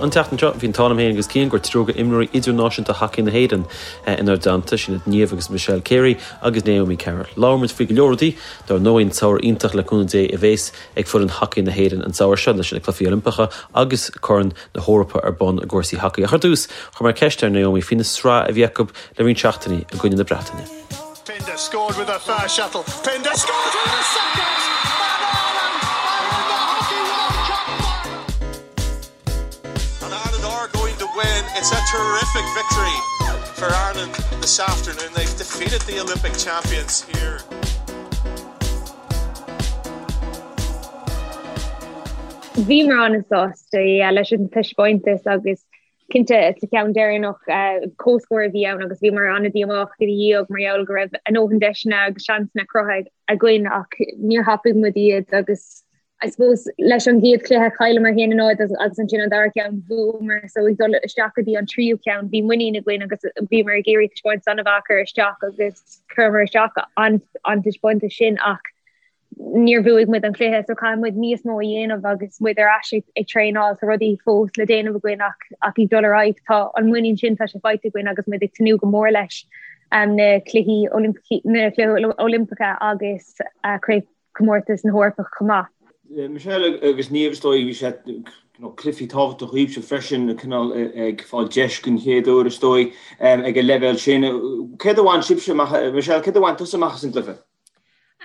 An tseachtain seo, bhí an t-ádh liom féin agus Cian go raibh triúr d'imreoirí idirnáisiúnta hacaí na hÉireann inár dteannta, sin iad Niamh agus Michelle Carey agus Naomi Carroll. Labhair muid faoi go leor rudaí, dár ndóigh an samhradh iontach le cúnamh Dé a bhéas ag foireann hacaí na hÉireann an samhradh seo leis na Cluichí Oilimpeacha agus Corn na hEorpa ar bun i gcúrsaí hacaí. Ach ar dtús, chuir mé ceist ar Naomi faoina sraith a bhí acu le roinnt seachtainí i gcoinne na Breataine. Pinder scored with a first shuttle. Pinder scored with a second! And Ireland are in the Hockey World Cup final! And Ireland are going to win. It's a terrific victory for Ireland this afternoon. They've defeated the Olympic champions here. Bhíomar an-sásta leis an taispeántas agus Cinnte, sa cheann deireanach, comhscór a bhí ann agus bhíomar an-díomách ina dhiaidh mar gheall go raibh a ndóthain deiseanna agus seansanna cruthaithe againn ach níor thapaigh muid iad agus I suppose leis an gcéad chluiche chailleamar 1-0 agus ansin an dara ceann bhuamar so ag dul isteach go dtí an tríú ceann bhí muinín againn agus bhíomar ag iarraidh taispeántas an-mhaith a chur isteach agus chuireamar isteach an an taispeántas sin ach níor bhuaigh muid an cluiche so caithfidh muid níos mó a dhéanamh agus muid ar ais ag traenáil tá rudaí fós le déanamh againn ach ach ag dul ar aghaidh tá an muinín sin tá sé faighte againn agus muid ag tnúth go mór leis um, na cluichí na cluichí Oilimpeacha agus uh, craobhchomórtas na hEorpa chomh maith. Michelle agus Niamh is dóigh bhí sé cluichí tábhachtach dhaoibhse freisin cineál ag fáil deis den chéad uair is dóigh ag an leibhéal sin. Céard a bhain sibhse amach, Michelle, céard a bhain tusa amach as an gcluiche?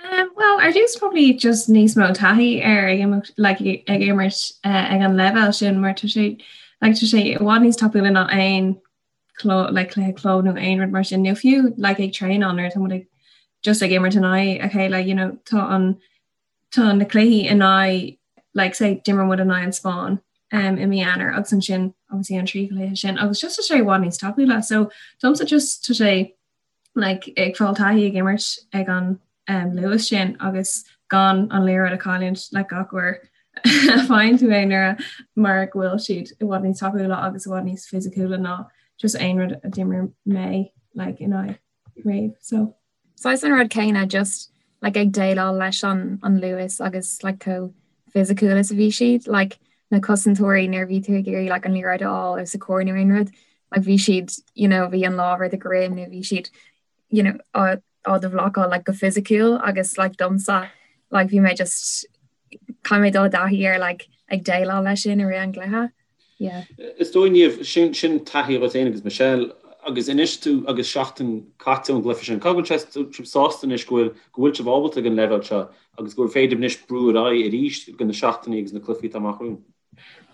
Um, well, ar dtús probably just níos mó taithí ar ag imirt like, ag imirt uh, ag an leibhéal sin mar tá sé like, tá sé i bhfad níos tapúla ná aon club like, cluiche club nó aon rud mar sin nó fiú like, ag traenáil nuair atá muid ag just ag imirt in aghaidh a chéile you know, tá an tá na cluichí in aghaidh like, say d'imir muid in aghaidh an Spáinn um, i mí Eanáir agus ansin obviously an trí chluiche sin agus just tá sé i bhfad níos tapúla so domsa just tá sé like, ag fáil taithí ag imirt ag an um, luas sin agus gan an liathróid a chailliúint like, gach uair a faigheann tú é nuair mar go bhfuil siad i bhfad níos tapúla agus i bhfad níos fisiciúla ná just aon rud a d'imir mé like, in aghaidh riamh. So. Saghas an rud céanna just like, ag déileáil leis an, an luas agus like, chomh fisiciúil is a bhí siad, like, na cosantóirí nuair a bhí tú ag iarraidh like, an liathróid a fháil os a comhair nó aon rud, like, bhí siad you know, bhí an lámh ar do dhroim nó bhí siad you know, á, á do bhlocáil like, go fisiciúil agus like, domsa like, bhí mé just caithfidh mé dul i dtaithí ar like, ag déileáil leis sin i rith an gcluiche. Yeah. Is dóigh Niamh, sin, sin taithí agat féin agus Michelle, agus anois tú agus seachtain caite ón gcluiche sin, cá bhfuil sé sibh sásta anois go bhfuil, go bhfuil sibh ábalta ag an leibhéal seo agus go bhfuil féidir anois brú ar aghaidh arís go na seachtainí agus na cluichí atá amach romhainn?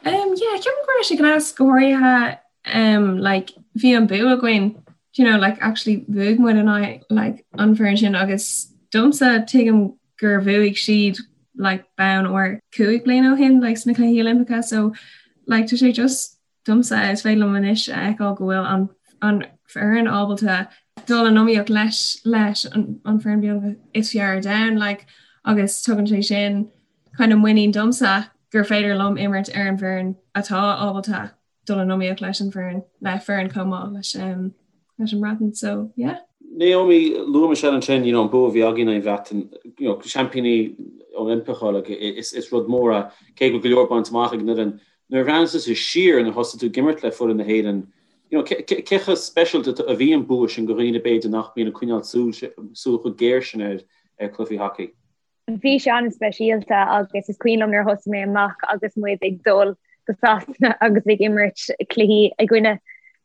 Um, yeah, ceapaim go raibh sé gnás go háirithe um, like, bhí an bua againn, you know, like, actually bhuaigh muid in aghaidh like, an foireann sin agus domsa tuigim gur bhuaigh siad like bonn óir 5 bliana ó shin like sna Cluichí Oilimpeacha so like tá sé just domsa is féidir liom anois a fheiceáil go bhfuil an an foireann ábalta dul in iomaíocht leis leis an an foireann beagnach is fearr ar domhan like agus tugann sé sin kind of muinín domsa gur féidir liom imirt ar an bhfoireann atá ábalta dul in iomaíocht leis an bhfoireann, le foireann chomh maith leis um, leis an mBreatain. So, yeah. Naomi, luaigh Michelle ansin, you know, an bua a bhí againn ar an Bhreatain, you know, seaimpíní Oilimpeacha, like, is, is rud mór é, cé go bhfuil go leor bainte amach ag an fhoireann. Nuair a bhreathnaíonn tusa siar nuair a thosaigh tú ag imirt le foireann na hÉireann, you know, cé, cé, cé chomh speisialta a bhí an bua sin do dhaoine b'fhéidir nach mbíonn ag coinneáil súil, súil chomh géar sin ar, ar cluichí hacaí? Bhí sé an-speisialta agus is cuimhin liom nuair a thosaigh mé amach agus muid ag dul go Sasana agus ag imirt cluichí i gcoinne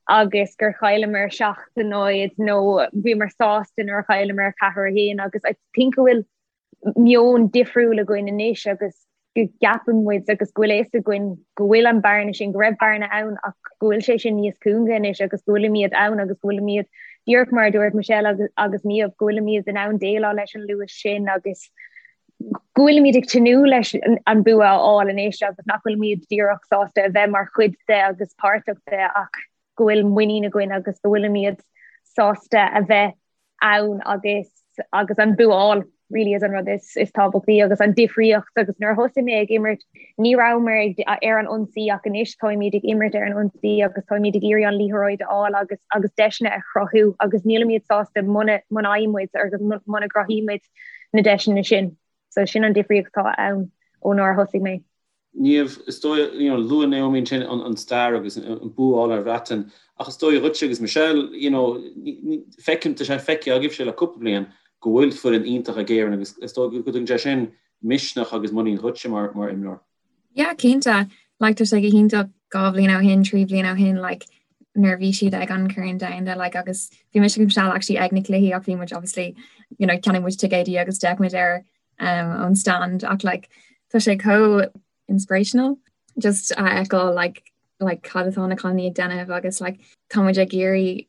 agus gur chailleamar 7-0 nó bhíomar sásta nuair a chailleamar 4-1 agus I think go bhfuil meon difriúil againn anois agus go gceapann muid agus go bhfuil a fhios againn go bhfuil an bearna sin, go raibh bearna ann ach go bhfuil sé sin níos cúnga anois agus go bhfuilimid ann agus go bhfuilimid, díreach mar a dúirt Michelle agus, agus Niamh, go bhfuilimid in ann déileáil leis an luas sin agus go bhfuilimid ag tnúth leis an bua a fháil anois agus nach bhfuilimid díreach sásta a bheith mar chuid de agus páirteach de ach go bhfuil muinín againn agus go bhfuilimid sásta a bheith ann agus agus an bua a fháil really is an rud is is tábhachtaí agus an difríocht agus nuair a thosaigh mé ag imirt ní rabhamar ag ar an ionsaí ach anois táimid ag imirt ar an ionsaí agus táimid ag iarraidh an liathróid a fháil agus agus deiseanna a chruthú agus nílimid sásta muna muna fhaigheann muid agus muna gcruthaímid na deiseanna sin. So sin an difríocht atá ann ó nuair a thosaigh mé. Niamh, is dóigh, you know, luaigh Naomi ansin an stair agus an bua a fháil ar Bhreatain, ach is dóigh dhuitse agus Michelle, you know, feicim, tá sé feicthe agaibhse le cúpla bliain go bhfuil foireann iontach ag Éirinn agus is dóigh go dtugann sé sin misneach agus muinín dhuitse mar mar imreoir. Yeah, cinnte. Like, tá sé go hiontach 2 bhliain ó shin, 3 bhliain ó shin, like, nuair a bhí siad ag an Corn Domhanda, like, agus bhí mise agus Michelle actually ag na cluichí ach bhí muid obviously, you know, cheannaigh muid ticéidí agus d'fhéach muid air um, ón stand ach like, tá sé chomh inspirational just a fheiceáil like, like, cad atá na cailíní ag déanamh agus like, tá muid ag iarraidh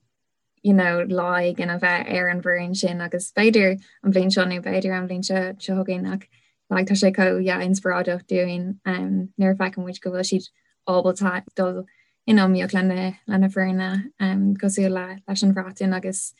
you know, lá éigin a bheith ar an bhfoireann sin agus b'fhéidir an bhliain seo nó b'fhéidir an bhliain seo seo chugainn ach like, tá sé chomh yeah, inspioráideach dúinn um, nuair a fheiceann muid go bhfuil siad ábalta dul in iomaíocht le na, le na foirne um, cosúil le, leis an Bhreatain agus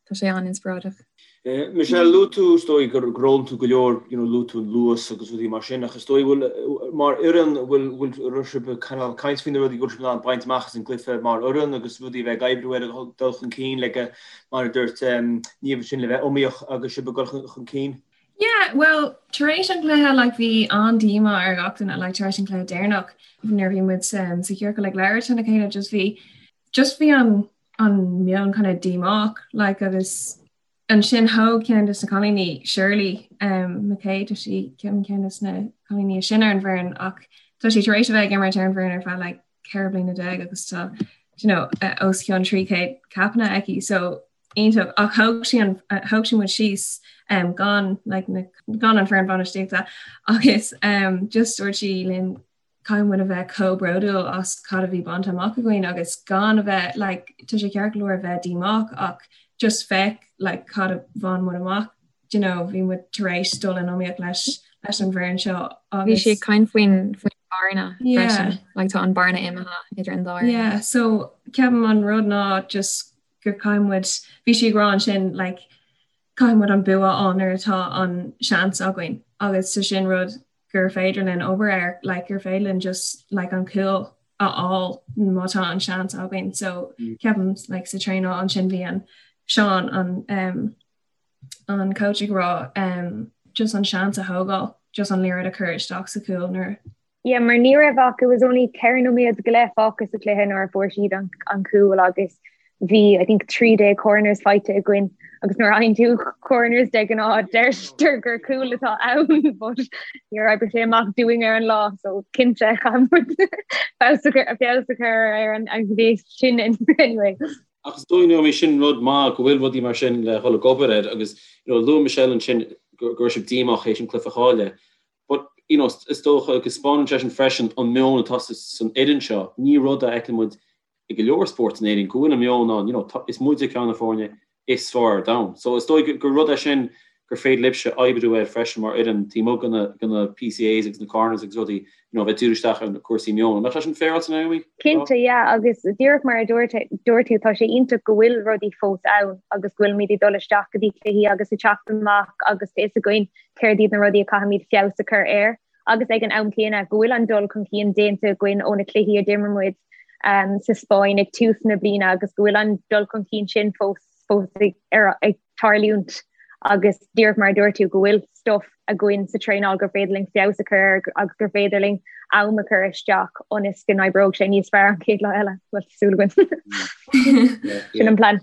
tá sé an-inspioráideach. Michelle, luaigh tú, is dóigh, gur fhoghlaim tú go leor, you know, luaigh tú an luas agus rudaí mar sin, ach is dóigh, bhfuil, mar fhoireann, bhfuil, bhfuil, raibh sibh ag cineál caint faoi na rudaí go bhfuil sibh in ann baint amach as an gcluiche mar fhoireann agus rudaí a bheith ag oibriú ar dul chun cinn le go, mar a dúirt Niamh ansin, le bheith iomaíoch agus sibh ag dul chun cinn? Yeah, well, tar éis an chluiche, like, bhí an-díomá ar gach duine, like, tar éis an chluiche deireanach, nuair a bhí muid um, sa chiorcal ag labhairt lena chéile, just bhí, just bhí an, an meon kind of díomách like agus ansin thóg ceann de na cailíní Shirley um, McKay tá sí ceann ceann de na cailíní is sine ar an bhfoireann ach tá sí tar éis a bheith ag imirt ar an bhfoireann ar feadh like 14 bliana agus tá you know, uh, os cionn 300 capanna aici so iontach ach thóg sí an uh, thóg sí muid síos um, gan like, na, gan an foireann bainistíochta agus um, just dúirt sí linn caithfidh muid a bheith chomh bródúil as cad a bhí bainte amach againn agus gan a bheith like tá sé ceart go leor a bheith díomách ach just féach like cad a bhain muid amach do you know bhí muid tar éis dul in iomaíocht leis leis an bhfoireann seo agus Bhí sí ag caint faoin faoin bearna freisin like tá an bearna imithe idir an dá fhoireann. Yeah so ceapaim an rud ná just gur caithfidh muid bhí sí ag rá ansin like caithfidh muid an bua a fháil nuair atá an seans againn agus tá sin rud gur féidir linn obair air, like gur féidir linn just like an cúl a fháil má tá an seans againn. So ceapaim like sa traenáil ansin bhí an Seán an um, an coach ag rá um, just an seans a thógáil, just an liathróid a chur isteach sa chúl nuair Yeah, mar ní raibh ach it was only 4 nóiméad go leith fágtha sa chluiche nuair a fuair siad an, an cúl agus bhí I think 13 corners faighte againn agus nuair a fhaigheann tú corners de ghnáth deirtear gur cúl atá ann but níor oibrigh sé amach dúinn ar an lá so cinnte chaith muid feabhas a chur feabhas a chur ar an an ghné sin anyway. Ach is dóigh Naomi sin rud maith go bhfuil rudaí mar sin le dhul ag obair air agus you know luaigh Michelle ansin go raibh sibh díomách théis an cluiche a chailleadh but you know is dócha go spáineann sé sin freisin an meon atá san fhoireann seo ní rud a fheiceann muid i go leor spórt in Éirinn go bhfuil an meon ann, you know, is muide ceann de na foirne is fearr ar domhan. So is dóigh gur rud é sin gur féidir libhse oibriú air freisin mar fhoireann taobh amuigh de na, de na PCAs agus na corners agus rudaí, you know, bheith díriú isteach ar na cúrsaí meoin. An mbeadh sé sin féaráilte, Naomi? Cinnte, yeah, agus díreach mar a dúirt, dúirt tú, tá sé iontach go bhfuil rudaí fós ann agus go bhfuilimid ag dul isteach go dtí cluichí agus ag teacht amach agus tá fhios againn céard iad na rudaí a caithfimid feabhas a chur air. agus ag an am céanna go bhfuil an dul chun cinn déanta againn ó na cluichí a d'imir muid sa Spáinn ag tús na bliana agus go bhfuil an dul chun cinn sin fós fós ag, ar, ag tarlúint agus díreach mar a dúirt tú go bhfuil stuff againn sa traenáil gur féidir linn feabhas a chur air agus gur féidir linn am a chur isteach ionas go n-oibreoidh sé níos fearr an chéad lá eile. Bhuel, tá súil againn. Sin an plean.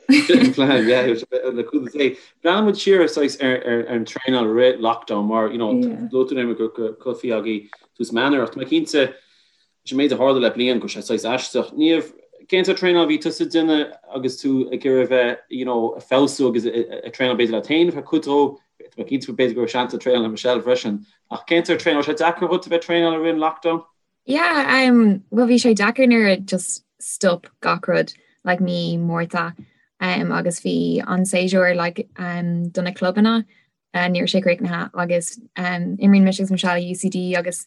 Breathnaíonn muid siar saghas ar an traenáil rith lockdown mar you know luaigh tú Naomi go raibh cluichí agaibh tús mí Eanáir ach tá mé cinnte leis an méid a tharla le bliain go raibh sé saghas aisteach. Niamh, cén sórt traenáil a bhí tusa ag déanamh agus tú ag iarraidh a bheith you know ag feabhsú agus ag traenáil b'fhéidir leat féin ar cuid dhó, tá mé cinnte b'fhéidir go raibh seans ag traenáil le Michelle freisin ach cén sórt traenáil, raibh sé deacair dhuit a bheith ag traenáil i rith an lockdown? Yeah, um, well bhí sé deacair nuair a just stop gach rud like mí Márta um, agus bhí an séasúr like, um, do na clubanna uh, ní raibh sé críochnaithe agus um, imríonn mise agus Michelle UCD agus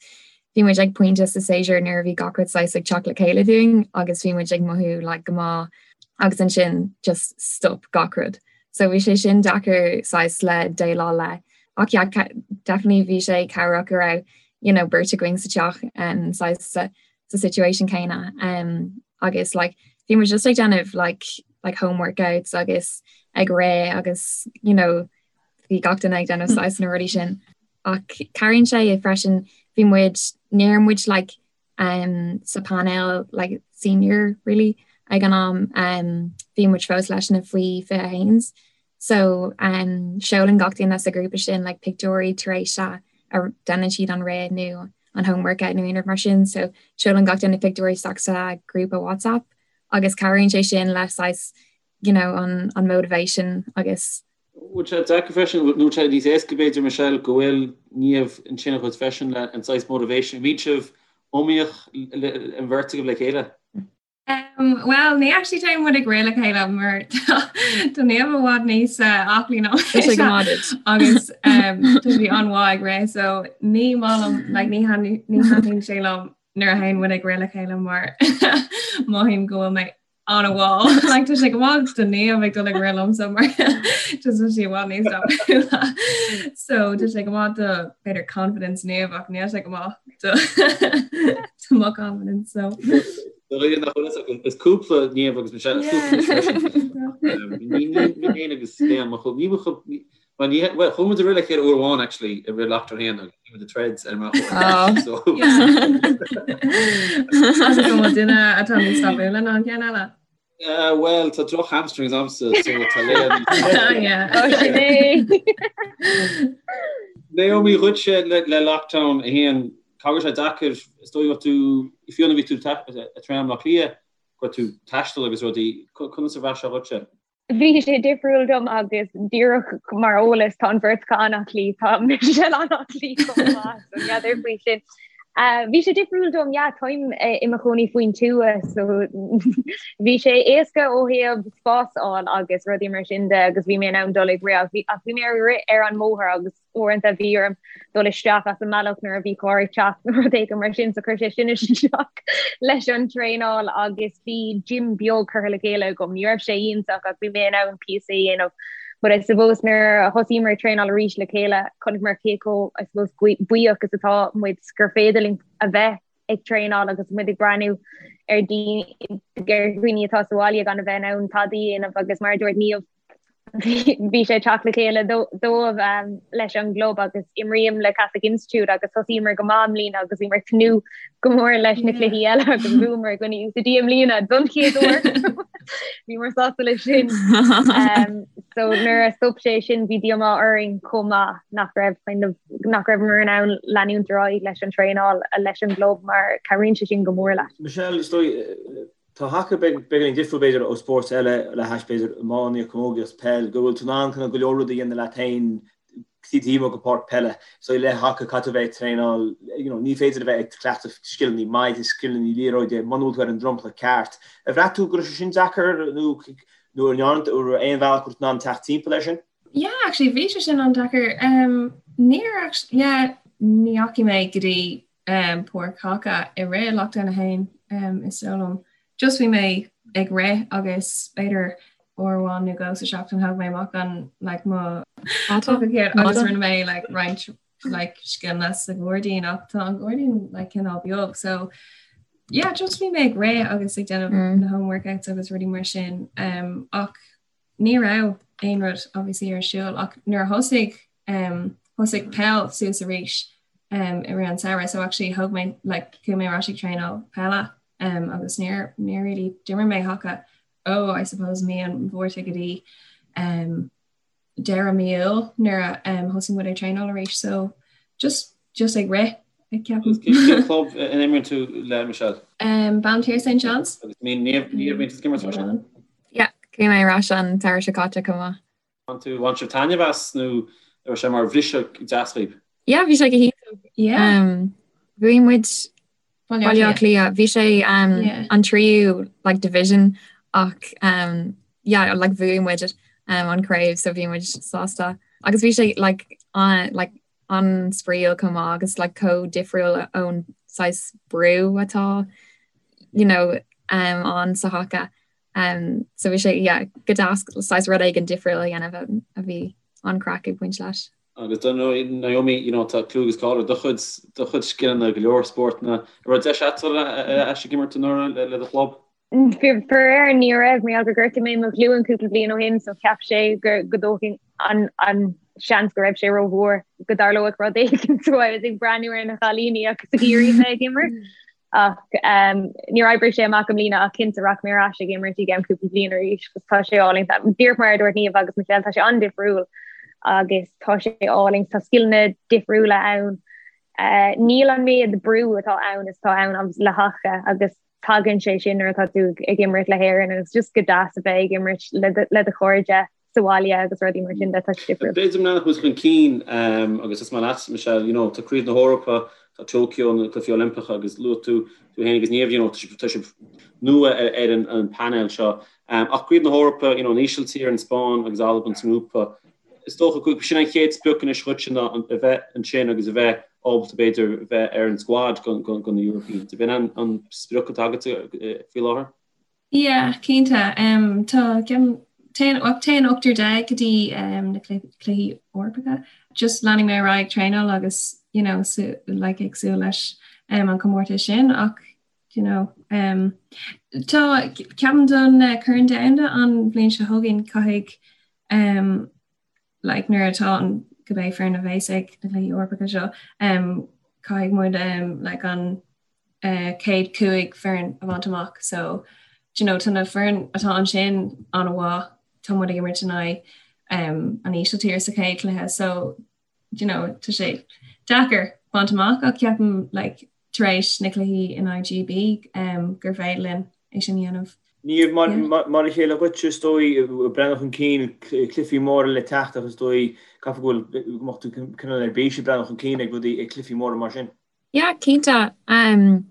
bhí muid ag pointe sa séasúr nuair a bhí gach rud saghas ag teacht le chéile dúinn agus bhí muid ag mothú like, go maith agus ansin just stop gach rud. So bhí sé sin deacair saghas le déileáil le. Ach yeah, definitely bhí sé cabhrach go raibh you know, beirt againn sa teach um, saghas sa, sa situation céanna um, agus like, bhí muid just ag déanamh like, like home workouts agus ag rith agus you know, bhí gach duine ag déanamh saghas na rudaí sin. Ach cabhraíonn sé freisin bhí muid Ní raibh muid like um, sa panel like senior really ag an am um, bhí muid fós leis na faoi 21s. So um, seolann gach duine sa grúpa sin like pictiúirí tar éis a a déanann siad an rith nó an home workout nó aon rud mar sin, so seolann gach duine pictiúirí isteach sa grúpa WhatsApp agus cabhraíonn sé sin le saghas you know, an, an motivation agus Bhfuil sé deacair freisin, nó bhfuil sé níos éasca b'fhéidir Michelle go bhfuil Niamh ansin agat freisin le an saghas motivation, an mbíonn sibh iomaíoch an bheirt agaibh le chéile? Um, well, ní actually téann muid ag rith le chéile mar tá Niamh i bhfad níos uh, aclaí ná agus um, tá sí an-mhaith ag rith, so ní maith liom like, ní thaitníonn sé liom nuair a théann muid ag rith le chéile mar mothaím go bhfuil mé an-mhall like tá sé go maith do Niamh ag dul ag rith liomsa mar just tá sí i bhfad níos tapúla so tá sé go maith do b'fhéidir confidence Niamh ach níl sé go maith do do mo confidence so Is cúpla Niamh agus Michelle is cúpla Ní féin agus Liam ní Well ní well chuaigh muid ag rith le chéile uair amháin actually i rith lockdown 1 agus bhí muid ag treads ar an mbealach so Agus an bhfuil duine atá níos tapúla ná an ceann eile? Uh, well tá droch hamstrings agamsa so tá Léa Oh, sin é. Naomi dhuitse le, le lockdown 1 cá raibh sé deacair is dóigh tú fiú nuair a bhí tú ag traenáil i mBaile Átha Cliath go raibh tú ag taisteal agus rudaí conas a bhraith sé dhuitse? Bhí sé difriúil dom agus díreach mar eolas tá an bheirt acu an-aclaí, tá Michelle an-aclaí chomh maith, so n'fheadar faoi sin. Bhí sé difriúil dom, yeah, táim i mo chónaí faoin tuath so bhí sé éasca ó thaobh spás a fháil agus rudaí mar sin de agus bhí mé in ann dul ag rith ach bhí mé ag rith ar an mbóthar agus uaireanta bhí orm dul isteach as an mbealach nuair a bhí carr ag teacht nó rud éigin mar sin so chuir sé sin isteach leis an traenáil agus bhí gym beag curtha le chéile agam. Ní raibh sé iontach ach bhí mé in ann píosa a dhéanamh. But I suppose nuair a thosaíomar ag traenáil arís le chéile chonaiceamar cé chomh I suppose buíoch is atá muid gur féidir linn a bheith ag traenáil agus muid ag breathnú ar dhaoine atá sa bhaile gan a bheith in ann tada a dhéanamh agus mar a dúirt Niamh bhí sé ag teacht le chéile dóibh leis an gclub agus imrím le Catholic Institute agus thosaíomar go maith i mbliana agus bhíomar ag tnúth go mór leis na cluichí eile agus bhuamar i gcoinne UCD i mbliana don chéad uair. Bhíomar sásta leis sin. So nuair a stop sé sin bhí díomá orainn chomh maith nach raibh kind of nach raibheamar in ann leanúint ar aghaidh leis an traenáil leis an gclub mar cabhraíonn sé sin go mór leat. Michelle, is dóigh Tá haca beagáinín difriúil b'fhéidir ó spóirt eile le hais b'fhéidir iománaíocht, camógaíocht, peil, go bhfuil tú in ann kind of go leor rudaí a dhéanamh leat féin taobh amuigh de pháirc peile. So le haca caithfidh tú a bheith ag traenáil, you know, ní féidir a bheith ag cleachtadh scileanna maide, scileanna liathróide muna bhfuil tú ar an dromchla ceart. Ar bhraith tú go raibh sé sin deacair nó nó an ndearna tú aon bhealach go raibh tú in ann teacht timpeall air sin? Yeah, actually bhí sé sin an-deacair. Um, níor actually, yeah, ní dheachaigh mé go dtí um, páirc haca i rith lockdown 1 um, is dóigh liom. Just bhí mé ag rith agus b'fhéidir uair amháin nó dhó sa seachtain thóg mé amach an like, mo agus rinne mé like, roinnt like, scileanna sa ghairdín ach tá an gairdín like, cineál beag so yeah, just bhí mé ag rith agus ag déanamh mm. na home workouts agus rudaí mar sin um, ach ní raibh aon rud obviously ar siúl ach nuair a thosaigh um, thosaigh peil suas arís um, i rith an samhradh so actually thóg mé like, chuaigh mé ar ais ag traenáil peile um, agus níor níor really d'imir mé haca ó I suppose mí an Mhárta go dtí um, deireadh mí Iúil nuair a um, thosaigh muid ag traenáil arís so just just ag rith ag ceapaim. Cén club a n-imríonn tú le Michelle? Um, Ballinteer St John's. Agus ní ní ní bhíonn tú ag imirt freisin? Yeah, chuaigh mé ar ais an tsamhradh seo caite chomh maith. Bhain tú bhain sibh taitneamh as nó raibh sé mar bhriseadh deas dhaoibh? Yeah, bhí sé go hiontach. Yeah. Um, bhuaigh muid Baile Baile Átha Cliath. Bhí sé um, Yeah. an tríú like, division ach um, yeah, like, bhuaigh muid um, an craobh so bhí muid sásta. Agus bhí sé like, an, like, an-spraíúil chomh maith agus like, chomh difriúil ón saghas brú atá you know, um, ann sa haca. Um, so bhí sé yeah, go deas saghas rud éigin difriúil a dhéanamh a, a bhí an-craic ag baint leis. Agus dar ndóigh Naomi, you know, tá clú agus cáil ar do chuid do chuid scileanna go leor spórtanna. An raibh deis agat dul ar ais ag imirt anuraidh le, le do chlub? Faraor ní raibh mar gheall gur ghortaigh mé mo ghlúin cúpla bliain ó shin so cheap sé go go dtógfainn an an seans go raibh sé rómhór go dtarlódh rud éigin so I was ag breathnú ar na cailíní agus ag iarraidh bheith ag imirt. Ach um, níor oibrigh sé amach i mbliana ach cinnte rachaidh mé ar ais ag imirt i gceann cúpla bliain arís agus tá sé álainn. Díreach mar a dúirt Niamh agus Michelle tá sé an-difriúil agus tá sé álainn, tá scileanna difriúla ann. Uh, níl an méid brú atá ann is atá ann le haca agus tagann sé sin nuair atá tú ag imirt le hÉirinn agus just go deas a bheith ag imirt le do chairde sa bhaile agus rudaí mar sin de tá sé difriúil. B'fhéidir mná chuas chun cinn agus is maith leat Michelle, you know, tá Craobh na hEorpa, tá Tokyo, na Cluichí Oilimpeacha agus luaigh tú tú féin agus Niamh, you know, tá sibh nua ar an painéal seo. Ach Craobh na hEorpa, you know, an Ísiltír, an Spáinn agus Albain sa ngrúpa. Is dócha go sin an chéad sprioc anois dhuitse ná a bheith ansin agus a bheith ábalta b'fhéidir a bheith ar an squad do na Europeans. Ab in an sprioc atá agat faoi láthair? Yeah, cinnte. Tá téann téann 18 go dtí na cluichí Eorpacha. Just leanfaidh mé ar aghaidh ag traenáil agus you know, like ag súil leis an comórtas sin ach you know, um, tá ceapaim don uh, Corn Domhanda an bhliain seo chugainn caithfidh um, like, nuair atá an cibé foireann a bheas ag na Cluichí Eorpacha seo um, caithfidh muid um, like, an uh, chéad 5 foireann a bhaint amach so you know, tá na foireann atá ansin an-mhaith tá muid ag imirt in aghaidh um, an Ísiltír sa chéad chluiche so you know, tá sé deacair baint amach ach ceapaim like, tar éis na cluichí in aghaidh GB um, gur féidir linn é sin a dhéanamh. Niamh, mar a chéile dhuit, is dóigh, ag breathnú chun cinn, cluichí móra le teacht ach is dóigh, caithfidh go bhfuil, go mbeadh tú cineál ar bís ag breathnú chun cinn ag rudaí, ag cluichí móra mar sin. Yeah, cinnte. Um,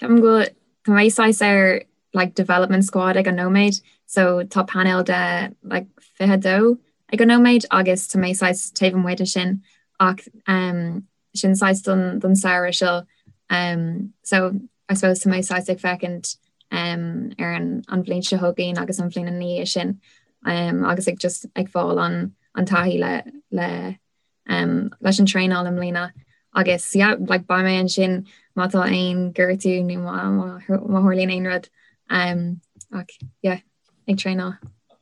ceapaim go bhfuil tá mé saghas ar like development squad ag an nóiméad, so tá painéal de like 22 ag an nóiméad agus tá mé saghas taobh amuigh de sin ach um, sin saghas don, don samhradh seo. Um, so I suppose tá mé saghas ag féachaint um, ar an, an bhliain seo chugainn agus an bhliain ina dhiaidh sin um, agus ag just ag fáil an, an taithí le, le um, leis an traenáil i mbliana agus yeah, like, beidh mé ansin má tá aon gortú nó má, má, má tharlaíonn aon rud um, ach yeah, ag traenáil.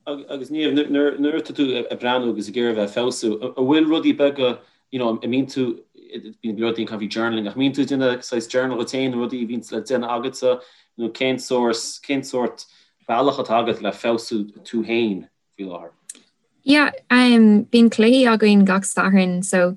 Agus Niamh, nuair atá tú ag breathnú agus ag iarraidh a bheith ag feabhsú, an bhfuil rudaí beaga, you know, an mbíonn tú, bíonn go leor daoine ag caint faoi journaling, ach an mbíonn tú ag déanamh saghas journal dhuit féin, rudaí a bhíonn le déanamh agatsa, nó cén sórt, cén sórt bealach atá agat le feabhsú tú féin faoi láthair? Yeah, um, bíonn cluichí againn gach Satharn, so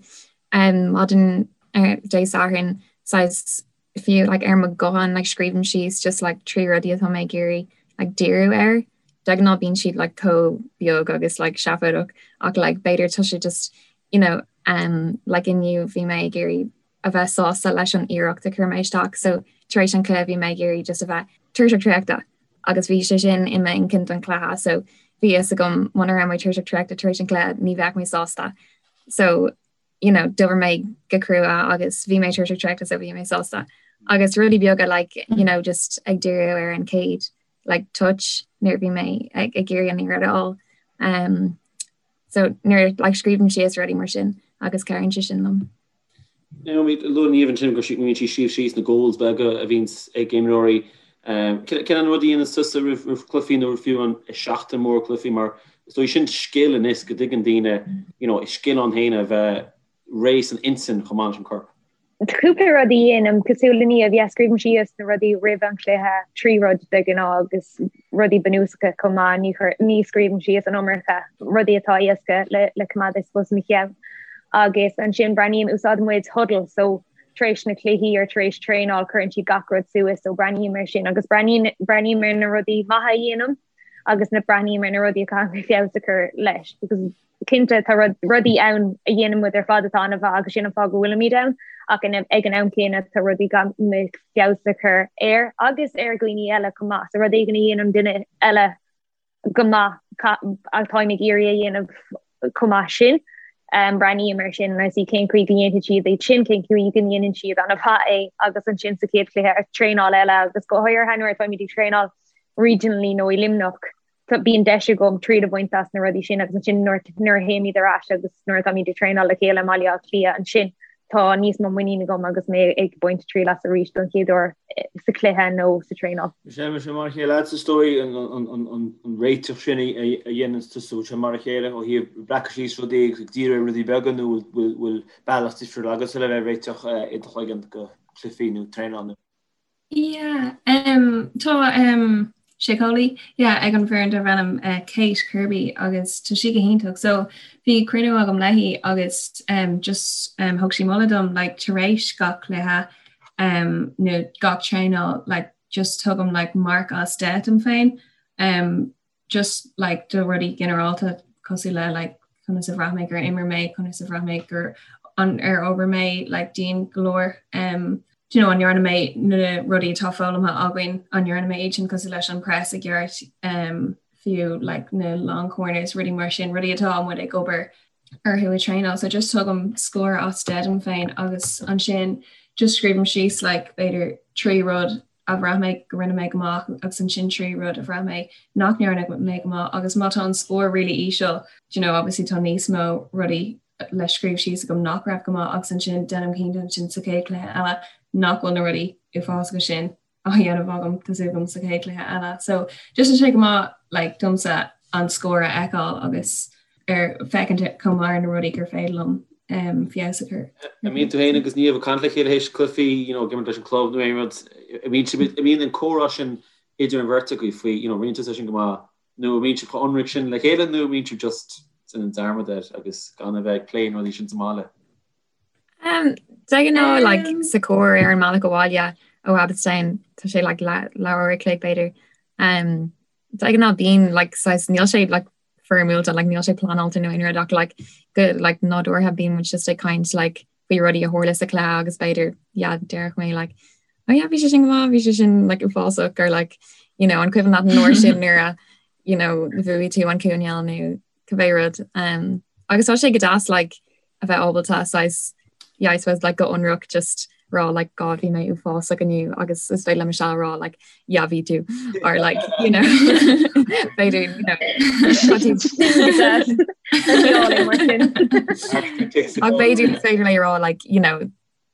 um, maidin uh, Dé Sathairn, saghas fiú like ar mo ghuthán like scríobhaim síos just like 3 rudaí atá mé ag iarraidh like díriú air. De ghnáth bíonn siad like chomh beag agus like seafóideach ach like b'fhéidir tá sé just you know um like inniu bhí mé ag iarraidh a bheith sásta leis an iarracht a chuir mé isteach so tar éis an chluiche bhí mé ag iarraidh just a bheith tuirseach traochta agus bhí sé sin i m'intinn don chluiche so bhí fhios agam muna raibh mé tuirseach traochta tar éis an chluiche ní bheadh mé sásta so you know, d'oibir mé go crua agus bhí mé tuirseach traochta so bhí mé sásta. Agus rudaí beaga like, you know, just ag díriú ar an chéad like, touch nuair bhí mé ag ag iarraidh an liathróid a fháil. Um, so nuair like, scríobhaim síos rudaí mar sin agus cabhraíonn sé sin liom. Naomi, luaigh Niamh ansin go mbíonn sí ag scríobh síos na goals beaga a bhíonn ag imreoirí. Um, cén an rud a dhéanann tusa roimh roimh cluichí nó fiú an seachtain mór cluichí mar Is dóigh sin scil anois go dtuigeann daoine, you know, is scil ann féin a bheith réidh san intinn chomh maith leis an corp. Tá cúpla rud a dhéanaim, cosúil le Niamh, yeah, scríobhaim síos na rudaí roimh an chluiche, 3 rud de ghnáth agus rudaí bunúsacha chomh maith, ní chuir, ní scríobhaim síos an iomarca rudaí atá éasca le le coimeád I suppose i mo cheann. Agus ansin breathnaím, úsáideann muid Hudl so tar éis na cluichí or tar éis traenáil cuireann siad gach rud suas so breathnaím ar sin agus breathnaím breathnaím ar na rudaí maithe a dhéanaim agus na breathnaím ar na rudaí a caithfidh mé feabhas a chur leis because cinnte tá rud, rudaí ann a dhéanann muid ar fad atá an-mhaith agus sin an fáth go bhfuilimid ann ach in, ag an am céanna tá rudaí caithfidh mé feabhas a chur air agus ar dhaoine eile chomh maith. So rud éigin a dhéanann duine eile go maith atáim ag iarraidh a dhéanamh chomh maith sin. Um, breathnaím ar sin agus cén chaoi go ndéanfaidh siad é sin, cén chaoi go ndéanann siad an-mhaith é agus ansin sa chéad chluiche ar traenáil eile agus go háirithe nuair atáimid ag traenáil regionally nó i Luimneach, bíonn deis agam triail a bhaint as na rudaí sin agus ansin nuair a théimid ar ais agus nuair atáimid ag traenáil le chéile i mBaile Átha Cliath ansin. Tá níos mó muinín agam agus mé ag baint triail as arís don chéad uair sa chluiche nó sa traenáil. Sé mar sin mar a chéile agat is dóigh an réiteach sin a dhéanann tusa, bhfuil sé mar a chéile ó thaobh breacadh síos rudaí agus ag díriú ar rudaí beaga nó bhfuil bealach difriúil agatsa le bheith ag réiteach i do chloigeann go cluichí nó traenáil nó. Yeah, um, tá um, síceolaí yeah, ag an bhfoireann darb ainm uh, Kate Kirby agus tá sí go hiontach. So bhí cruinniú agam léi agus um, just um, thug sí moladh dom like, tar éis gach cluiche um, nó gach traenáil like, just tugaim like, marc as 10 dom féin. Um, just like do rudaí ginearálta cosúil le like conas a bhraith mé gur imir mé, conas a bhraith mé gur an ar obair mé like dian go leor um, do you know, an ndearna mé na rudaí atá foghlamtha againn, an ndearna mé iad sin cosúil leis an press i gceart um, fiú like na long corners, rudaí mar sin, rudaí atá muid ag obair orthu ag traenáil. So just tugaim scór as 10 dom féin agus ansin just scríobhaim síos like b'fhéidir 3 rud a bhraith mé go rinne mé go maith agus ansin 3 rud a bhraith mé nach ndearna mé go maith agus má tá an scór really íseal, do you know, obviously tá níos mó rudaí le scríobh síos agam nach raibh go maith agus ansin déanaim cinnte ansin sa chéad chluiche eile nach bhfuil na rudaí uafásacha sin á dhéanamh agam tá súil agam sa chéad chluiche eile. So just tá sé go maith like domsa an scór a fheiceáil agus ar féachaint chomh maith ar na rudaí gur féidir liom feabhas a chur. An mbíonn tú féin agus Niamh ag caint le chéile théis cluichí, you know, ag imirt leis an club nó aon rud, an mbíonn sibh, an mbíonn an comhrá sin idir an bheirt agaibh faoi, you know, rinne tusa sin go maith, nó an mbíonn sibh chomh ionraic sin le chéile nó an mbíonn sibh just ag déanamh dearmad air agus gan a bheith ag plé na rudaí sin sa mbaile? Um, de ghnáth like, sa charr ar an mbealach abhaile ó Abbotstown, tá sé like, leathuair a chloig b'fhéidir. Um, de ghnáth bíonn like, saghas, níl sé like, foirmiúil like níl sé pleanáilte nó aon rud ach like go like nádúrtha bíonn muid just ag caint like faoi rudaí a tharla sa chluiche agus b'fhéidir yeah déarfadh mé like oh yeah bhí sé sin go maith bhí sé sin like uafásach or like you know an cuimhin leat an uair sin nuair a you know bhuaigh tú an coinneal nó cibé rud um agus tá sé go deas like a bheith ábalta saghas yeah I suppose like go ionraic just rá like God bhí mé uafásach inniu agus is féidir le Michelle rá like yeah bhí tú or like you know b'fhéidir you know Ach b'fhéidir is féidir léi rá like you know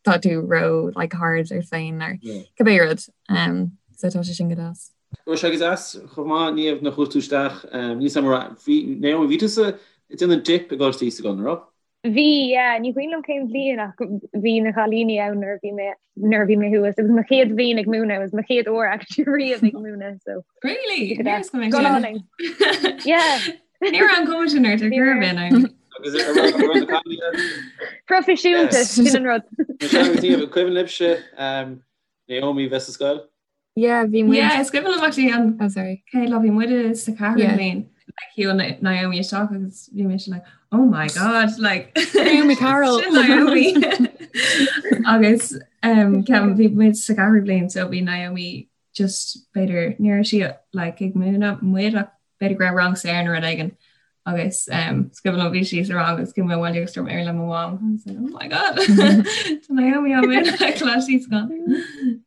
tá tú ró like hard ort féin or cibé rud um so tá sé sin go deas. Raibh sé go deas chomh maith Niamh nuair a chuaigh tú isteach níl 's agam an raibh bhí Naomi bhí tusa ag déanamh dip i gColáiste Íosagáin an raibh? Bhí, yeah, ní cuimhin liom cén bhliain ach bhí na cailíní ann nuair a bhí mé nuair a bhí mé thuas. It was mo chéad bhliain ag múineadh, it was mo chéad uair actually riamh ag múineadh so. Really? Go hálainn. Yeah. Ní raibh an cuma sin ort ar chor ar bith, Naomi. Agus an raibh na cailíní ann? Proifisiúnta, sin an rud. Michelle agus Niamh, an cuimhin libhse Naomi bheith sa scoil? Yeah, bhí muid. Yeah, is cuimhin liom actually an Oh, sorry. chéad lá bhí muid sa ceathrú Yeah. bliain like shiúil Naomi isteach agus bhí mise like oh my god like Naomi Carroll. Sin Naomi agus um, ceapaim bhí muid sa ceathrú bliain so bhí Naomi just b'fhéidir ní raibh sí like ag múineadh muid ach b'fhéidir go raibh rang saor nó rud éigin agus um, is cuimhin liom bhí sí sa rang agus chuaigh mé abhaile agus dúirt mé le mo mham I was like, oh my god Tá Naomi á múineadh ag Coláiste Íosagáin.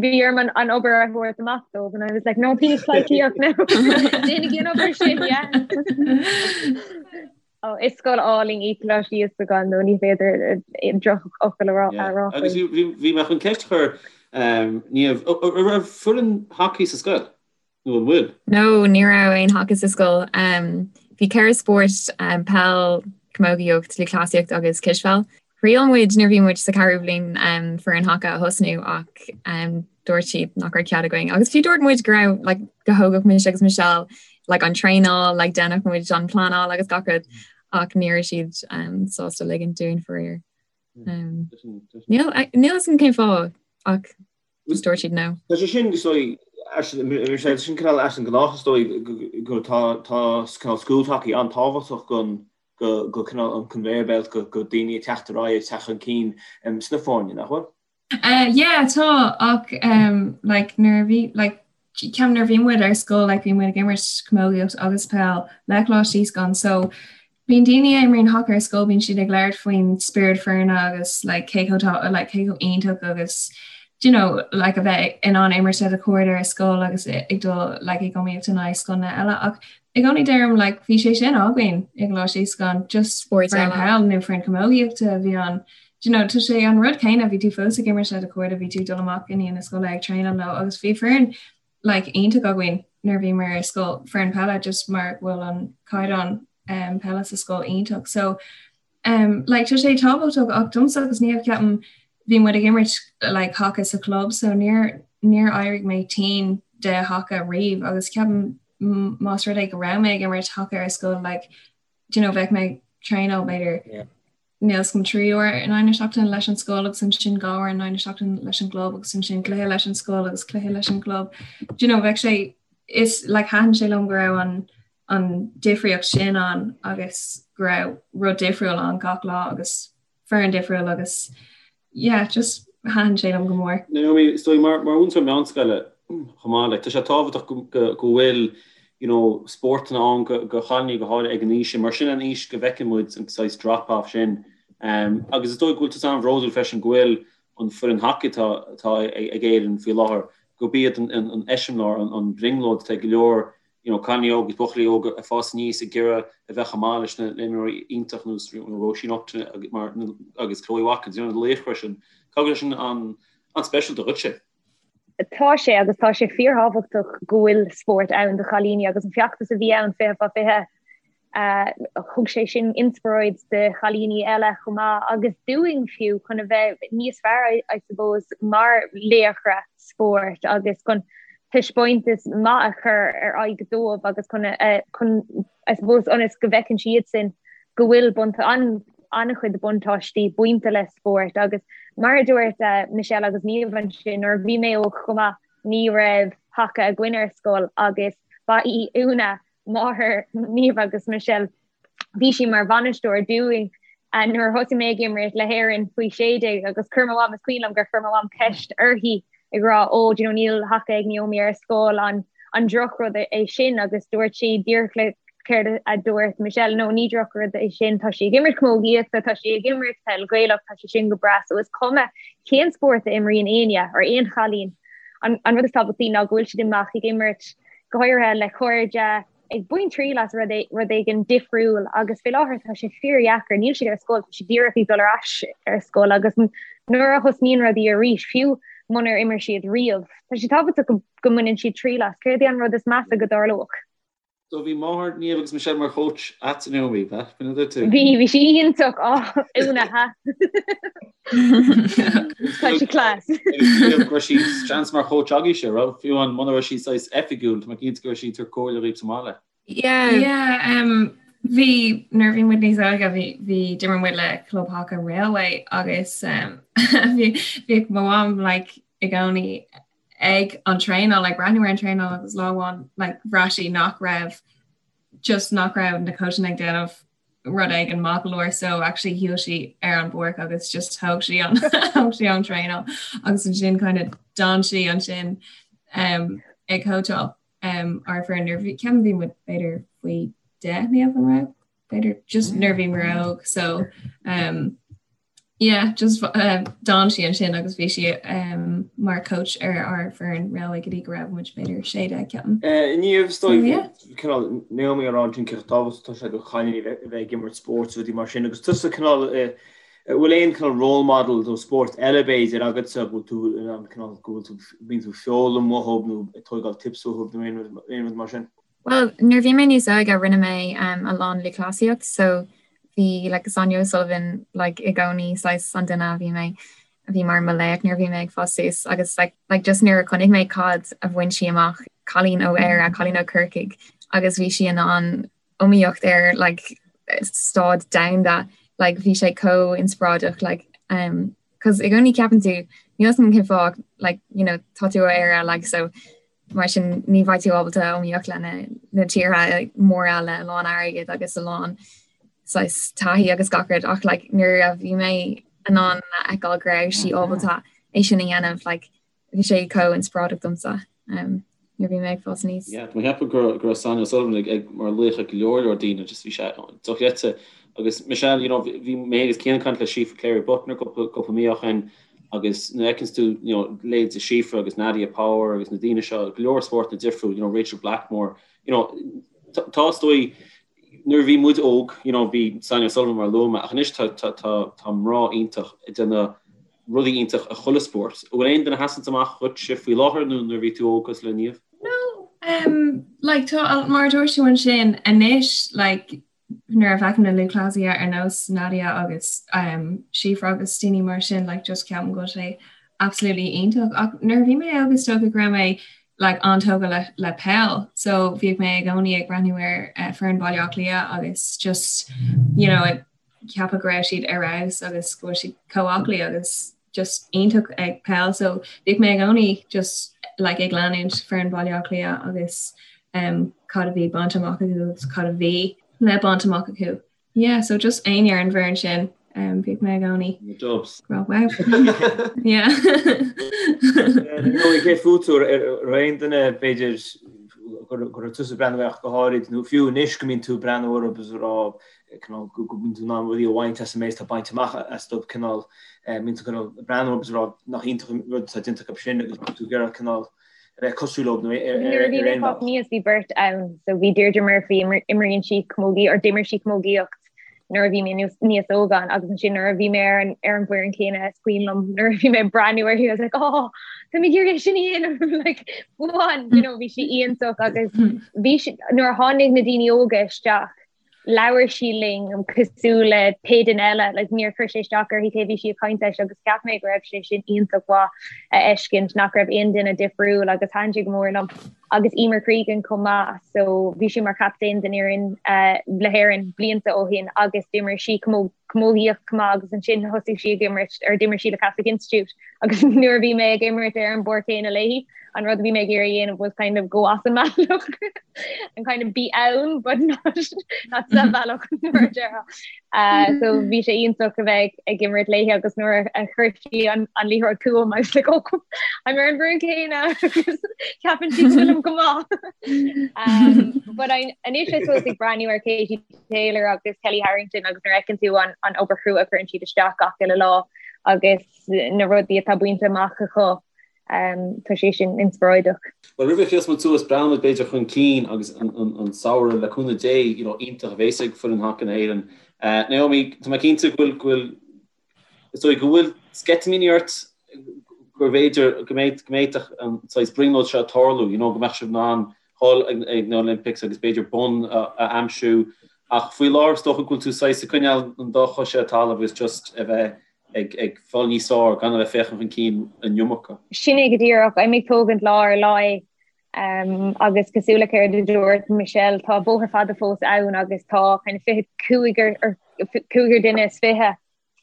Bhí orm an obair a thabhairt amach dóibh and I was like no please please no Déanaigí an obair sin yeah. Oh, is scoil álainn í Coláiste Íosagáin nó ní féidir drochfhocal a rá Yeah. a rá Agus faoi. bhí bhí mé chun ceist a chur um, Niamh, an raibh foireann hacaí sa scoil? Nó an bhfuil? No, ní raibh aon haca sa scoil. Bhí ceithre spórt, peil, camógaíocht, lúthchleasaíocht agus cispheil. Thriail muid nuair a bhí muid sa ceathrú bhliain foireann haca a thosnú ach dúirt siad nach raibh cead againn. Agus fiú dúirt muid go raibh like go thógfadh mise agus Michelle like an traenáil, like déanfadh muid an pleanáil agus gach rud ach ní raibh siad sásta ligint dúinn faraor. Níl a fhios agam cén fáth ach Just dúirt siad no. Tá sé sin is dóigh sé sin cineál as an gnách is dóigh go tá tá cineál school hockey an-tábhachtach go go go cineál an conveyor belt go go daoine ag teacht ar aghaidh ag teacht chun cinn sna foirne, nach bhfuil? Yeah tá ach like nuair a bhí like ceapaim nuair a bhí muid ar scoil like bhí muid ag imirt camógaíocht agus peil le Coláiste Íosagáin so Bíonn daoine a imríonn haca ar scoil, bíonn siad ag labhairt faoin spiorad foirne agus like cé chomh tá like cé chomh iontach agus do you know like a bheith in ann imirt le do chairde ar scoil agus ag dul like ag iomaíocht in aghaidh scoileanna eile ach i gcónaí deirim like bhí sé sin againn i gColáiste Íosagáin just Spóirt foireann eile. peil nó foireann camógaíochta a bhí ann. Do you know, tá sé an rud céanna, bhí tú fós ag imirt le do chairde, bhí tú ag dul amach i ndiaidh na scoile ag traenáil leo agus bhí foireann like iontach againn nuair a bhíomar ar scoil, foireann peile just mar go bhfuil an caighdeán um, peile sa scoil iontach. So um, like, tá sé tábhachtach ach domsa agus Niamh ceapaim bhí muid ag imirt like, haca sa chlub so níor níor éirigh mé tinn de haca riamh agus ceapaim más rud é go raibh mé ag imirt haca ar scoil like, do you know, bheadh mé ag traenáil b'fhéidir yeah. Níl 's agam 3 uair in aghaidh na seachtaine leis an scoil agus ansin 2 uair in aghaidh na seachtaine leis an gclub agus ansin cluiche leis an scoil agus cluiche leis an gclub. Do you know, bheadh sé is like thaitin sé liom go raibh an an difríocht sin ann agus go raibh rud difriúil ann gach lá agus foireann difriúil agus yeah, just thaitin sé liom go mór. Naomi, is dóigh mar mar mhúinteoir meánscoile chomh maith, like, tá sé tábhachtach go go go bhfuil you know, spórtanna ann go go chailíní go háirithe ag an aois sin, mar sin an aois go bhfeiceann muid an saghas drop off sin. Um, agus is dóigh go bhfuil tusa an-bhródúil freisin go bhfuil an foireann hacaí atá atá ag Éirinn faoi láthair, gurb iad an an an eiseamláir, an an brionglóid atá ag go leor you know, cailíní óga agus buachaillí óga ag fás aníos ag iarraidh a bheith chomh maith leis na himreoirí iontach ar nós Róisín Upton agus Chloe Watkins, you know, na laochra sin. Caithfidh go bhfuil sin an-speisialta dhuitse? Tá sé agus tá sé fíorthábhachtach go bhfuil spórt ann do chailíní agus an feachtas a bhí ann 20 fá 20 Thug sé sin inspioráid do chailíní eile chomh maith agus dúinn fiú chun a bheith níos fearr I suppose mar laochra spóirt agus chun taispeántas maith a chur ar aghaidh dóibh agus chun chun I suppose ionas go bhfeiceann siadsan go bhfuil an-chuid buntáistí bainte le spórt agus mar a dúirt Michelle agus Niamh ansin nuair a bhí mé óg chomh maith ní raibh haca againn ar scoil agus ba í Úna máthair Niamh agus Michelle. Bhí sí mar bhainisteoir dúinn nuair a thosaigh mé ag imirt le hÉirinn faoi 16 agus chuir mo mham, is cuimhin liom gur chuir mo mham ceist uirthi ag rá ó do you know níl haca ag Naomi ar scoil an an drochrud é sin agus dúirt sí díreach le céard a dúirt Michelle no ní drochrud é sin tá sí ag imirt camógaíochta tá sí ag imirt peil Ghaelach tá sé sin go breá so is cuma cén spórt a imríonn éinne or aon chailín an an rud is tábhachtaí ná go bhfuil siad amach ag imirt go háirithe le cairde, ag baint triail as rud rud éigin difriúil agus fé láthair tá sé fíordheacair, níl siad ar scoil, tá siad díreach ag dul ar ais ar scoil agus nuair a thosnaíonn rudaí arís, fiú munar imir siad riamh, tá sé tábhachtach go go mbaineann siad triail as. Céard é an rud is measa go dtarlódh? So bhí máthair Niamh agus Michelle mar choach agat Naomi, ab ea? B'in a dúirt tú? Bhí, bhí sí iontach, á, Úna, ha. Tá sí class. Go raibh sí seans mar choach agaibhse, raibh? Fiú amháin muna raibh sí saghas oifigiúil, tá mé cinnte go raibh sí ag tabhairt comhairle dhaoibh sa mbaile. Yeah. Yeah, um, bhí nuair a bhí muid níos óige bhí bhí d'imir muid le Club Haca Railway agus um, bhí bhíodh mo mham like i gcónaí ag an traenáil like breathnú ar an traenáil agus lá amháin like bhraith sí nach raibh just nach raibh na coachanna ag déanamh rud éigin maith go leor so actually shiúil sí ar an bpáirc agus just thóg sí an thóg sí an traenáil agus ansin kind of d'fhan sí ansin um, ag cóitseáil um, ár bhfoireann nuair bhí ceapaim bhí muid b'fhéidir faoi 10 Niamh an raibh b'fhéidir just nuair bhí muid óg so um, Yeah, just uh, d'fhan sí ansin agus bhí sí um, mar coach ar ár bhfoireann Railway go dtí go raibh muid b'fhéidir 16 ceapaim. Uh, Niamh is dóigh yeah. cineál Naomi ag rá ansin cé chomh tábhachtach atá sé do chailíní a bheith ag imirt spóirt rudaí mar sin agus tusa cineál uh, bhfuil aon cineál role model do spórt eile b'fhéidir agatsa bhfuil tú in ann cineál go bhfuil tú bíonn tú foghlaim uathu nó ag tógáil tips uathu nó aon rud aon rud mar sin? Well, nuair bhí mé níos óige rinne mé um, a lán lúthchleasaíocht, so bhí like, Sonia O'Sullivan like, i gcónaí saghas an duine a bhí mé a bhí mar mo laoch nuair a bhí mé ag fás suas agus like, like, just nuair a chonaic mé cad a bhain sí amach cailín ó Éire, cailín ó Corcaigh agus bhí sí in ann iomaíocht ar like, stáid domhanda like, bhí sé chomh inspioráideach like, um, 'cause i gcónaí ceapann tú níl 'fhios agam cén fáth like, you know, tá tú ó Éire like, so Mar sin ní bheidh tú ábalta iomaíocht le na tíortha móra le a lán airgid agus a lán saghas taithí agus gach rud ach like nuair a bhí mé in ann a fheiceáil go raibh sí ábalta é sin a dhéanamh like bhí sé chomh inspioráideach domsa um, nuair bhí mé ag fás aníos. Yeah, tá mé ag ceapadh go go raibh Sonia O'Sullivan ag ag mar laoch ag go leor leor daoine just bhí sé dochreidte agus Michelle you know bhí mé agus Cian ag caint le Síofra Cléirigh Buckner cúpla cúpla mí ó shin agus nuair a fheiceanns tú you know leithéidí Síofra agus Nadia Power agus na daoine seo, go leor spórtanna difriúil, you know Rachel Blackmore, you know tá is dóigh. Nuair a bhí muid óg, you know, bhí Sonia O'Sullivan mar a luaigh mé, ach anois tá tá tá tá mná iontach ag déanamh rudaí iontach i chuile spórt. An bhfuil aon duine a sheasann amach dhuitse faoi láthair nó nuair a bhí tú óg cosúil le Niamh? No, um, like, tá, mar a dúirt tú ansin, anois, like, nuair a fheicim na lúthchleasaithe ar nós Nadia agus um, Síofra agus daoine mar sin, like, just ceapaim go bhfuil sé absolutely iontach. Ach nuair a bhí mé óg is dócha go raibh mé like, an-tógtha le, le peil, so bhíodh mé i gcónaí ag breathnú ar uh, foireann Baile Átha Cliath agus just, you know, ag ceapadh go raibh siad ar fheabhas agus go bhfuil siad chomh aclaí agus just iontach ag peil so bhíodh mé i gcónaí just like ag leanúint foireann Baile Átha Cliath agus um, cad a bhí bainte amach acu agus cad a bhí le baint amach acu. Yeah, so just éinne ar an bhfoireann sin um, bhíodh mé i gcónaí. The Dubs. Well, wow. Yeah. Nó cé fút ar aon duine b'fhéidir go raibh tusa ag breathnú ach go háirid nó fiú anois go mbíonn tú ag breathnú orthu agus ag rá cineál go mbíonn tú in ann rudaí a bhaint as an méid atá bainte amach astu cineál mbíonn tú cineál ag breathnú agus ag rá nach iontach an rud atá déanta acu sin agus tú ag iarraidh cineál a bheith cosúil leo nó ar Nuair a bhí mé ag fás aníos bhí beirt ann so bhí Deirdre Murphy imríonn sí camógaí or d'imir sí camógaíocht nuair a bhí mé níos óga agus ansin nuair a bhí mé ar an ar an bhfoireann céanna is cuimhin liom nuair a bhí mé ag breathnú uirthi I was like oh tá mé ag iarraidh sin a dhéanamh like go on you know bhí sí iontach agus bhí sí nuair a tháinig na daoine óga isteach labhair sí linn cosúil le pé duine eile, like níor chuir sé isteach uirthi cé bhí sí ag caint leis agus cheap mé go raibh sé sin iontach mhaith a fheiscint nach raibh aon duine difriúil agus thaitin sé go mór liom. Agus Emer Cregan chomh maith, so bhí sí mar chaptaen den fhoireann uh, le hÉirinn blianta ó shin agus d'imir sí camógaíocht chomh maith agus ansin thosaigh sí ag imirt ar d'imir sí le Catholic Institute agus nuair a bhí mé ag imirt ar an bpáirc chéanna léi an rud a bhí mé ag iarraidh a dhéanamh was kind of go as an mbealach and kind of be ann but not not sa bhealach nuair a déarfá. Uh, so bhí sé iontach a bheith ag imirt léi agus nuair a chuir sí an, an liathróid chugam I was like oh I'm ar an bhfoireann céanna agus ceapann sí go bhfuilim go maith. Um, but I, anois I suppose ag breathnú ar Katie Taylor agus Kelly Harrington agus nuair a fheiceann tú an, an obair chrua a chuireann siad isteach gach uile lá agus na rudaí atá bainte amach acu Tá sé sin inspioráideach. Bhuel, roimh a chríochnós muid suas, breathnóidh muid b'fhéidir chun cinn agus an samhradh le cúnamh Dé, you know, iontach a bhéas ag foireann haca na hÉireann. Naomi, tá mé cinnte go bhfuil, go bhfuil, is dóigh go bhfuil sceitimíní ort go mb'fhéidir go mbeidh, go bhféadfadh an saghas brionglóid seo tarlú, you know, go mbeadh sibh in ann dhul ag na Olympics agus b'fhéidir bonn a aimsiú. Ach faoi láthair is dócha go bhfuil tú saghas ag coinneáil an dá chois ar an talamh agus just a bheith ag fáil níos fearr gan a bheith féachaint chun cinn an iomarca. Sin é go díreach. I'm ag tógaint lá ar lá é agus cosúil le céard a dúirt Michelle, tá bóthar fada fós ann agus tá kind of 25 ar cúigear duine is 20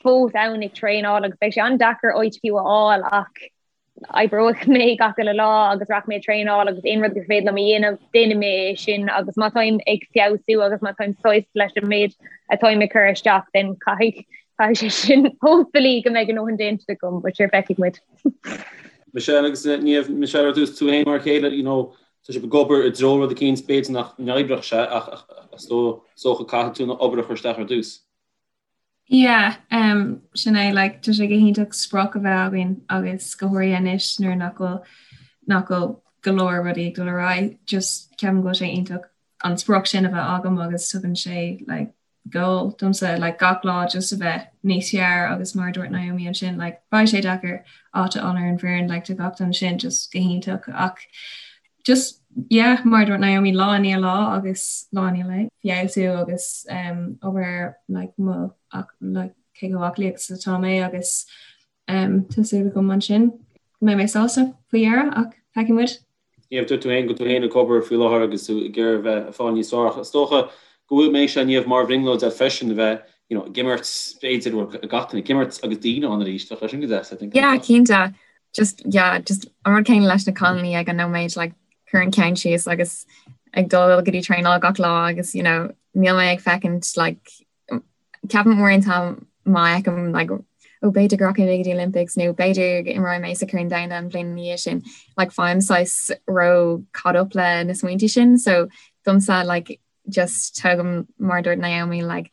fós ann ag traenáil agus beidh sé an-deacair áit fiú a fháil ach oibreoidh mé gach uile lá agus rachaidh mé ag traenáil agus aon rud gur féidir liom a dhéanamh, déanfaidh mé é sin agus má táim ag feabhsú agus má táim sásta leis an méid atáim ag cur isteach then caithfidh caithfidh sé sin hopefully go mbeidh a ndóthain déanta agam but sure feicfidh muid. Michelle agus Niamh, Michelle ar dtús tú féin mar a chéile, you know, tá sibh ag obair i dtreo rud eicínt, b'fhéidir nach n-oibreodh sé ach is dócha caithfidh tú an obair a chur isteach ar dtús. Yeah, um, sin é, like, tá sé go hiontach sprioc a bheith againn agus go háirithe anois nuair nach bhfuil nach bhfuil go leor rudaí ag dul ar aghaidh, just ceapaim go bhfuil sé iontach an sprioc sin a bheith agam agus tugann sé like, goal domsa like, gach lá just a bheith níos fearr agus mar a dúirt Naomi ansin like, beidh sé deacair áit a fháil ar an bhfoireann like, tá gach duine sin just go hiontach ach just yeah mar a dúirt Naomi lá i ndiaidh lá agus lá i ndiaidh lae feabhsú agus um, obair like, mo ach, like, cé chomh aclaí agus atá mé agus um, tá súil agam ansin go mbeidh mé sásta faoi dheireadh ach feicfidh muid. Niamh, dúirt tú féin go bhfuil tú féin ag obair faoi láthair agus tú ag iarraidh a bheith ag fáil níos fearr ach is dócha go bhfuil mbeidh sé Niamh mar bhrionglóid agat freisin a bheith you know, ag imirt b'fhéidir bhuel gach duine ag imirt agus daoine ann arís bheadh sé sin go deas I think. Yeah, cinnte. just yeah just an rud céanna leis na cailíní ag an nóiméad like cur an ceann síos agus ag dul go dtí traenáil gach lá agus you know níl mé ag féachaint like ceapaim uaireanta má fheicim like ó b'fhéidir go rachaidh mé go dtí Olympics nó b'fhéidir go imreoidh mé sa Chorn Domhanda an bhliain ina dhiaidh sin like faighim saghas ró caught up le na smaointe sin so domsa like just tógaim mar a dúirt Naomi like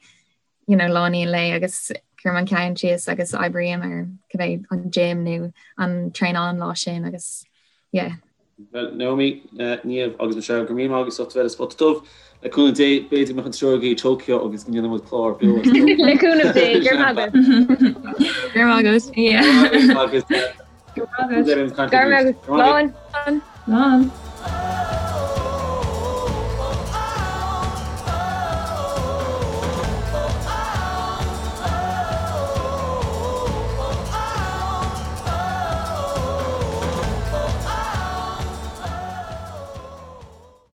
you know lá i ndiaidh lae agus cuirim an ceann síos agus oibrím ar cibé an gym nó an traenáil an lá sin agus yeah. Bhuel, Naomi, Niamh agus Michelle, go raibh míle maith agaibh as ucht a bheith ar Spota Dubh. Le cúnamh Dé, b'fhéidir go mbeadh an triúr agaibh i Tokyo agus go ndéanfaidh muid clár beo as Tokyo. Le cúnamh Dé, go raibh maith agat. Go raibh maith agat. Agus Go raibh maith agat. Go raibh maith agat. Slán. Slán.